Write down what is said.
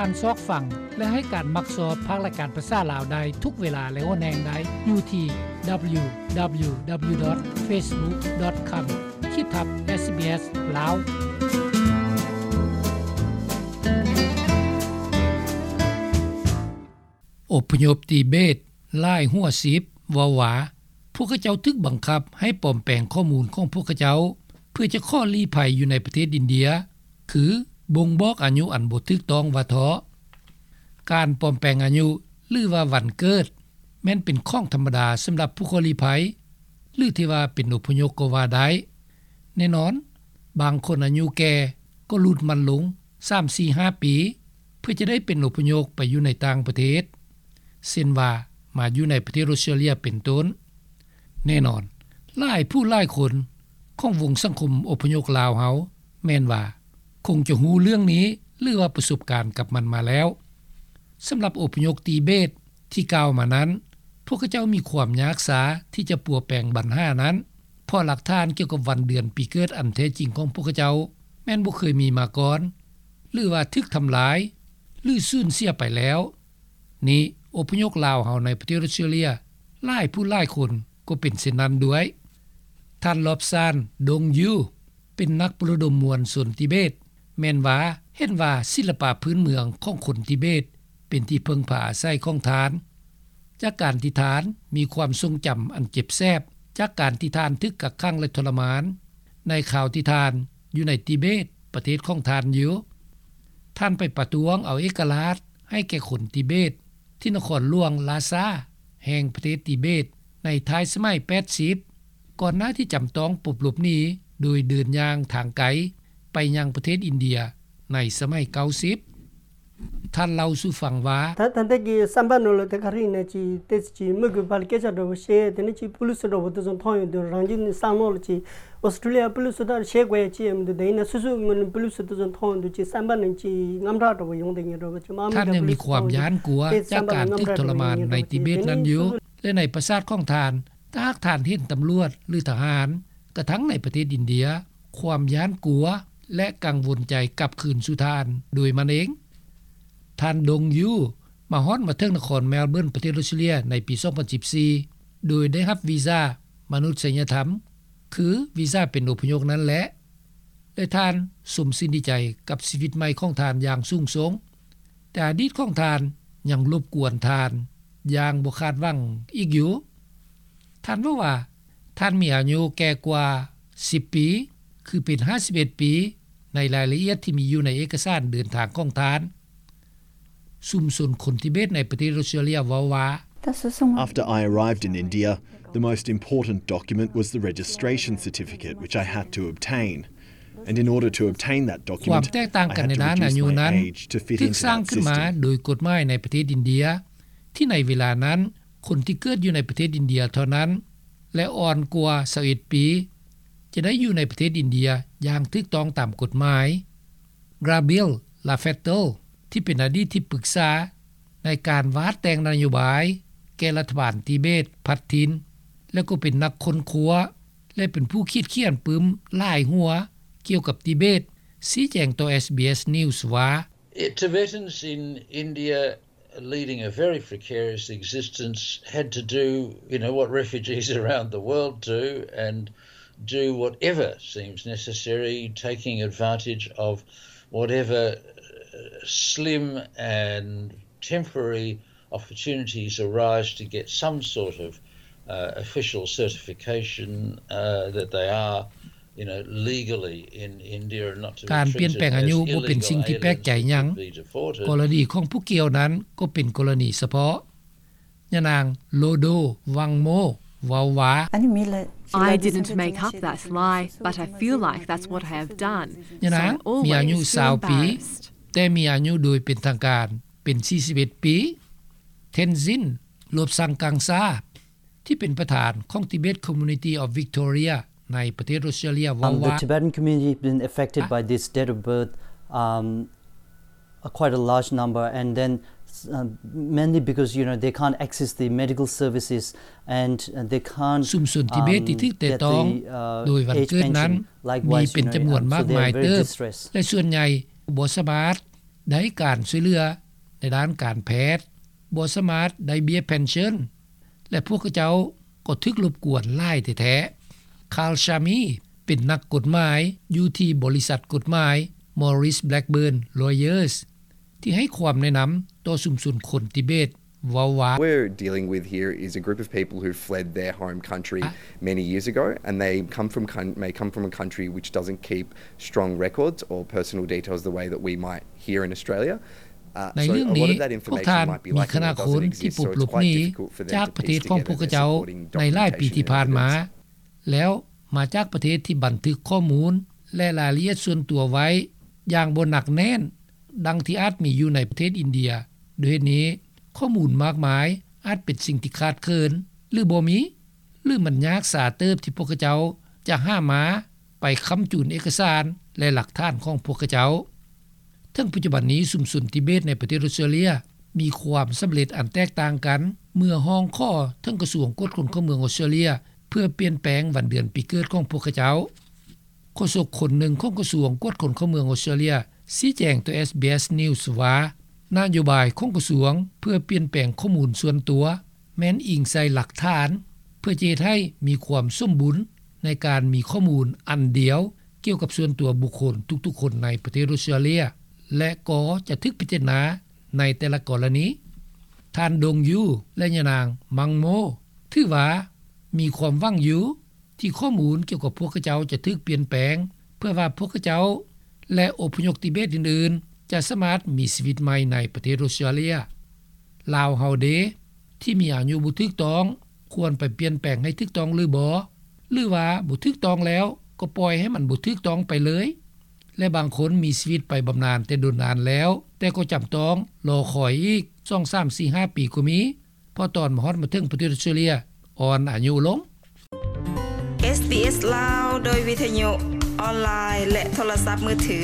ການຊອກຟັງ ແລະ ໃຫ້ການມັກຊອບພາກລາຍການພາສາລາວໄດ້ທຸກເວລາ ແລະ ຫົວແຮງໄດ້ຢູ່ທີ່ www.facebook.com ຂີດທັບ SBS ລາວ. ອົບພະຍົບຕີເບດຫຼາຍຫົວສິບເວົ້າວ່າ ພວກເຂົາເຈົ້າຖືກບັງຄັບໃຫ້ປອມແປງຂໍ້ມູນຂອງພວກເຂົາເຈົ້າ ເພື່ອຈະຂໍລີ້ໄພຢູ່ໃນປະເທດອິນເດຍ ຄືບົ່ງບອກອາຍຸອັນບໍ່ຖືກຕ້ອງວ່າເທາະ. ການປອມແປງອາຍຸ ຫຼືວ່າວັນເກີດ ແມ່ນເປັນຂອງທຳມະດາສຳລັບຜູ້ຂໍລີ້ໄພ ຫຼືທີ່ວ່າເປັນອົບພະຍົບກໍວ່າໄດ້. ແນ່ນອນ, ບາງຄົນອາຍຸແກ່ກໍຫຼຸດມັນລົງສາມ ສີ່ ຫ້າປີ ເພື່ອຈະໄດ້ເປັນອົບພະຍົບໄປຢູ່ໃນຕ່າງປະເທດ ເຊັ່ນວ່າມາຢູ່ໃນປະເທດອົດສະຕຣາເລຍເປັນຕົ້ນ. ແນ່ນອນ, ຫຼາຍຜູ້ຫຼາຍຄົນຂອງວົງສັງຄົມອົບພະຍົບລາວເຮົາ ແມ່ນວ່າຄົງຈະຮູ້ເລື່ອງນີ້ ຫຼືວ່າປະສົບການກັບມັນມາແລ້ວ. ສຳລັບອົບພະຍົບຕີເບດທີ່ກ່າວມານັ້ນ, ພວກເຂົາເຈົ້າມີຄວາມຍາກຊາທີ່ຈະປົວແປງບັນຫານັ້ນ ເພາະຫຼັກຖານກ່ຽວກັບວັນເດືອນປີເກີດອັນແທ້ຈິງຂອງພວກເຂົາເຈົ້າ ແມ່ນບໍ່ເຄີຍມີມາກ່ອນ ຫຼືວ່າຖືກທຳລາຍ ຫຼືສູນເສຍໄປແລ້ວ. ນີ້ ອົບພະຍົບລາວເຮົາໃນປະເທດອົດສະຕຣາເລຍ ຫຼາຍຜູ້ຫຼາຍຄົນກໍເປັນເຊັ່ນນັ້ນດ້ວຍ. ທ່ານ ລອບຊານ ດົງຢູ ເປັນນັກປະໂລມມວນຊົນຕິເບດ ແມ່ນວ່າເຫັນວ່າສິລະປະພື້ນເມືອງຂອງຄົນຕິເບດ ເປັນທີ່ເພິ່ງພາອາໄສຂອງທ່ານ ຈາກການທີ່ທ່ານມີຄວາມຊົງຈຳອັນເຈັບແສບ ຈາກການທີ່ທ່ານຖືກກັກຂັງ ແລະ ທໍລະມານ ໃນຄາວທີ່ທ່ານຢູ່ໃນຕິເບດ ປະເທດຂອງທ່ານຢູ່. ທ່ານໄປປະທ້ວງເອົາເອກະລາດໃຫ້ແກ່ຄົນຕິເບດ ທີ່ນະຄອນຫຼວງລາຊາ ແຫ່ງປະເທດຕິເບດ ໃນທ້າຍສະໄໝແປດສິບ ກ່ອນໜ້າທີ່ຈຳຕ້ອງປົບຫຼົບໜີ ໂດຍເດີນຍ່າງທາງໄກໄປຍັງປະເທດອິນເດຍໃນສະໄໝເກົ້າສິບ. ທ່ານເລົ່າສູ່ຟັງວ່າ ད་ད་ལྟ་གི་བསམ་པ་ནང་ལ་དེ་ག་རེ་ཡིན་ན་ཅིག་དེ་ཅིག་མི་དགོས་པ་ལ་སྐད་ཆ་འདྲ་བོ་བཤད་དེ་ནས་ཅིག་པུ་ལིས་འདྲ་བོ་དེ་ཚོ་མཐོང་ཡོང་དུས་རང་རྒྱུད་ནས་བསམ་བློ་ལ་ཅིག་ཨོ་སི་ཀྲི་ལི་ཡ་པུ་ལིས་ད་བཤད་དགོས་ཡ་ཅི་ཡང་མི་འདུག་དེ་ཡིན་ན་སོ་སོའི་ངོས་ནས་པུ་ལིས་དེ་ཚོ་མཐོང་ཡོང་དུས་ཅིག་བསམ་པ་ནང་ཅིག་དངངས་སྐྲག་འདྲ་བོ་ཡོང་དེ་ཉིད་འདྲ་བོ་ཅིག་མ་མི་འདྲ་པུ་ལིས་མཐོང་ཡོང་དུས་དེ་བསམ་པ་ལ་དངངས་སྐྲག་འདྲ་བོ་ཡོང་ཉིད་འདྲ་བོ་ཅིག་དེ་ནས་སོ་སོ་ལ་ཡ་ນາຍປະຊາດຂອງທ່ານ ຖ້າຫາກທ່ານເຫັນຕຳຫຼວດ ຫຼື ທະຫານ ກະທັງໃນປະເທດອິນເດຍ ຄວາມຢ້ານກົວ ແລະ ກັງວົນໃຈກັບຄືນສູ່ທ່ານໂດຍມັນເອງ. ທ່ານ ດົງຢູ ມາຮອດມາເຖິງນະຄອນແມລເບີນ ປະເທດອົດສະຕຣາເລຍ ໃນປີສອງພັນສິບສີ່ ໂດຍໄດ້ຮັບວີຊາມະນຸດສະຍະທຳ ຄືວີຊາເປັນອົບພະຍົບນັ້ນແຫຼະ ແລະ ທ່ານຊົມຊື່ນດີໃຈກັບຊີວິດໃໝ່ຂອງທ່ານຢ່າງສູງສົ່ງ. ແຕ່ອະດີດຂອງທ່ານຍັງລົບກວນທ່ານຢ່າງບໍ່ຄາດຫວັງອີກຢູ່. ທ່ານເວົ້າວ່າ ທ່ານມີອາຍຸແກ່ກວ່າສິບປີ ຄືເປັນຫ້າສິບເອັດປີ ໃນລາຍລະອຽດທີ່ມີຢູ່ໃນເອກະສານເດີນທາງຂອງທ່ານ. ຊຸມຊົນຄົນທິເບດໃນປະເທດອົດສະຕຣາເລຍເວົ້າວ່າ After I arrived in India, the most important document was the registration certificate, which I had to obtain. And in order to obtain that document, I had to reduce my age to fit into that system. ຄວາມແຕກຕ່າງກັນໃນດ້ານອາຍຸນັ້ນ ຖືກສ້າງຂຶ້ນມາໂດຍກົດໝາຍໃນປະເທດອິນເດຍ ທີ່ໃນເວລານັ້ນ ຄົນທີ່ເກີດຢູ່ໃນປະເທດອິນເດຍເທົ່ານັ້ນ ແລະ ອ່ອນກວ່າຊາວເອັດປີ ຈະໄດ້ຢູ່ໃນປະເທດອິນເດຍຢ່າງຖືກຕ້ອງຕາມກົດໝາຍ. ກຣາເບລ ລາເຟດເຕີລ ທີ່ເປັນອະດີດທີ່ປຶກສາໃນການວາດແຕ່ງນະໂຍບາຍແກ່ລັດຖະບານຕິເບດພັດຖິ່ນ ແລະ ກໍເປັນນັກຄົ້ນຄວ້າ ແລະ ເປັນຜູ້ຂີດຂຽນປຶ້ມຫຼາຍຫົວກ່ຽວກັບຕິເບດ ຊີ້ແຈງຕໍ່ SBS News ວ່າ Tibetans in India leading a very precarious existence had to do, you know, what refugees around the world do and do whatever seems necessary, taking advantage of whatever, uh, slim and temporary opportunities arise to get some sort of, uh, official certification, uh, that they are ການປ່ຽນແປງອາຍຸບໍ່ເປັນສິ່ງທີ່ແປກໃຈຫຍັງ. ກໍລະນີຂອງຜູ້ກ່ຽວນັ້ນກໍເປັນກໍລະນີສະເພາະ. ຍານາງ ໂລໂດ ວັງໂມ ເວົ້າວ່າ I didn't make up that lie, but I feel like that's what I have done. ຍານາງມີອາຍຸຊາວປີ ແຕ່ມີອາຍຸໂດຍເປັນທາງການເປັນສີ່ສິບເອັດປີ. ເທັນຊິນ ໂລບຊັງກັງຊາ ທີ່ເປັນປະທານຂອງ Tibet Community of Victoria ໃນປະເທດອົດສະຕຣາເລຍເວົ້າວ່າ The Tibetan community has been affected by this date of birth, um, uh, quite a large number, and then, uh, mainly because, you know, they can't access the medical services and, uh, they can't, ຊຸມຊົນທິເບດທີ່ຖືກແຕະຕ້ອງໂດຍວັນເກີດນັ້ນມີເປັນຈຳນວນມາກມາຍເຕີບ ແລະ ສ່ວນໃຫຍ່ບໍ່ສາມາດ ໄດ້ການຊ່ວຍເຫຼືອໃນດ້ານການແພດ, ບໍ່ສາມາດໄດ້ເບ້ຍເພັນເຊິນ ແລະ ພວກເຂົາເຈົ້າກໍຖືກລົບກວນຫຼາຍແທ້ໆ. Carl Shamie ເປັນນັກກົດໝາຍຢູ່ທີ່ບໍລິສັດກົດໝາຍ Maurice Blackburn Lawyers ທີ່ໃຫ້ຄວາມແນະນຳຕໍ່ຊຸມຊົນຄົນທິເບດ ເວົ້າວ່າ What we're dealing with here is a group of people who fled their home country many years ago, and they come from coun- may come from a country which doesn't keep strong records or personal details the way that we might here in Australia. ໃນເລື່ອງນີ້ ພວກທ່ານມີຄະນະຄົນທີ່ພົບຫຼົບໜີຈາກປະເທດຂອງພວກເຂົາເຈົ້າໃນຫຼາຍປີທີ່ຜ່ານມາ ແລ້ວມາຈາກປະເທດທີ່ບັນທຶກຂໍ້ມູນ ແລະ ລາຍລະອຽດສ່ວນຕົວໄວ້ຢ່າງບໍ່ໜັກແໜ້ນ ດັ່ງທີ່ອາດມີຢູ່ໃນປະເທດອິນເດຍ. ດ້ວຍເຫດນີ້ ຂໍ້ມູນມາກມາຍອາດເປັນສິ່ງທີ່ຂາດເຂີນ ຫຼື ບໍ່ມີ ຫຼື ມັນຍາກຊາເຕີບທີ່ພວກເຂົາເຈົ້າຈະຫາມາໄປຄ້ຳຈູນເອກະສານ ແລະ ຫຼັກຖານຂອງພວກເຂົາເຈົ້າ. ເຖິງປັດຈຸບັນນີ້ ຊຸມຊົນທິເບດໃນປະເທດອົດສະຕຣາເລຍມີຄວາມສຳເລັດອັນແຕກຕ່າງກັນ ເມື່ອຮ້ອງຂໍເຖິງກະຊວງກວດຄົນເຂົ້າເມືອງອົດສະຕຣາເລຍ ເພື່ອປ່ຽນແປງວັນເດືອນປີເກີດຂອງພວກເຂົາເຈົ້າ. ໂຄສົກຄົນໜຶ່ງຂອງກະຊວງກວດຄົນເຂົ້າເມືອງອົດສະຕຣາເລຍຊີ້ແຈງຕໍ່ ເອສບີເອສ News ວ່າ ນະໂຍບາຍຂອງກະຊວງເພື່ອປ່ຽນແປງຂໍ້ມູນສ່ວນຕົວ ແມ່ນອີງໃສ່ຫຼັກຖານ ເພື່ອຈະເຮັດໃຫ້ມີຄວາມສົມບູນໃນການມີຂໍ້ມູນອັນດຽວກ່ຽວກັບສ່ວນຕົວບຸກຄົນທຸກໆຄົນໃນປະເທດອົດສະຕຣາເລຍ ແລະ ກໍຈະຖືກພິຈາລະນາໃນແຕ່ລະກໍລະນີ. ທ່ານ ດົງຢູ ແລະ ຍານາງ ມັງໂມ ຖືວ່າມີຄວາມຫວັງຢູ່ ທີ່ຂໍ້ມູນກ່ຽວກັບພວກເຂົາເຈົ້າຈະຖືກປ່ຽນແປງ ເພື່ອວ່າພວກເຂົາເຈົ້າ ແລະ ອົບພະຍົບທິເບດອື່ນໆ ຈະສາມາດມີຊີວິດໃໝ່ໃນປະເທດອົດສະຕຣາເລຍ. ລາວເຮົາເດ ທີ່ມີອາຍຸບໍ່ຖືກຕ້ອງ ຄວນໄປປ່ຽນແປງໃຫ້ຖືກຕ້ອງຫຼືບໍ່? ຫຼືວ່າບໍ່ຖືກຕ້ອງແລ້ວ ກໍປ່ອຍໃຫ້ມັນບໍ່ຖືກຕ້ອງໄປເລີຍ? ແລະ ບາງຄົນມີຊີວິດໄປບຳນານແຕ່ດົນນານແລ້ວ ແຕ່ກໍຈຳຕ້ອງລໍຄອຍອີກ ສອງ ສາມ ສີ່ ຫ້າ ປີກໍມີ ເພາະຕອນມາຮອດມາເຖິງປະເທດອົດສະຕຣາເລຍອ່ອນອາຍຸລົງ. ເອສບີເອສ ລາວ ໂດຍວິທະຍຸອອນລາຍ ແລະ ໂທລະສັບມືຖື.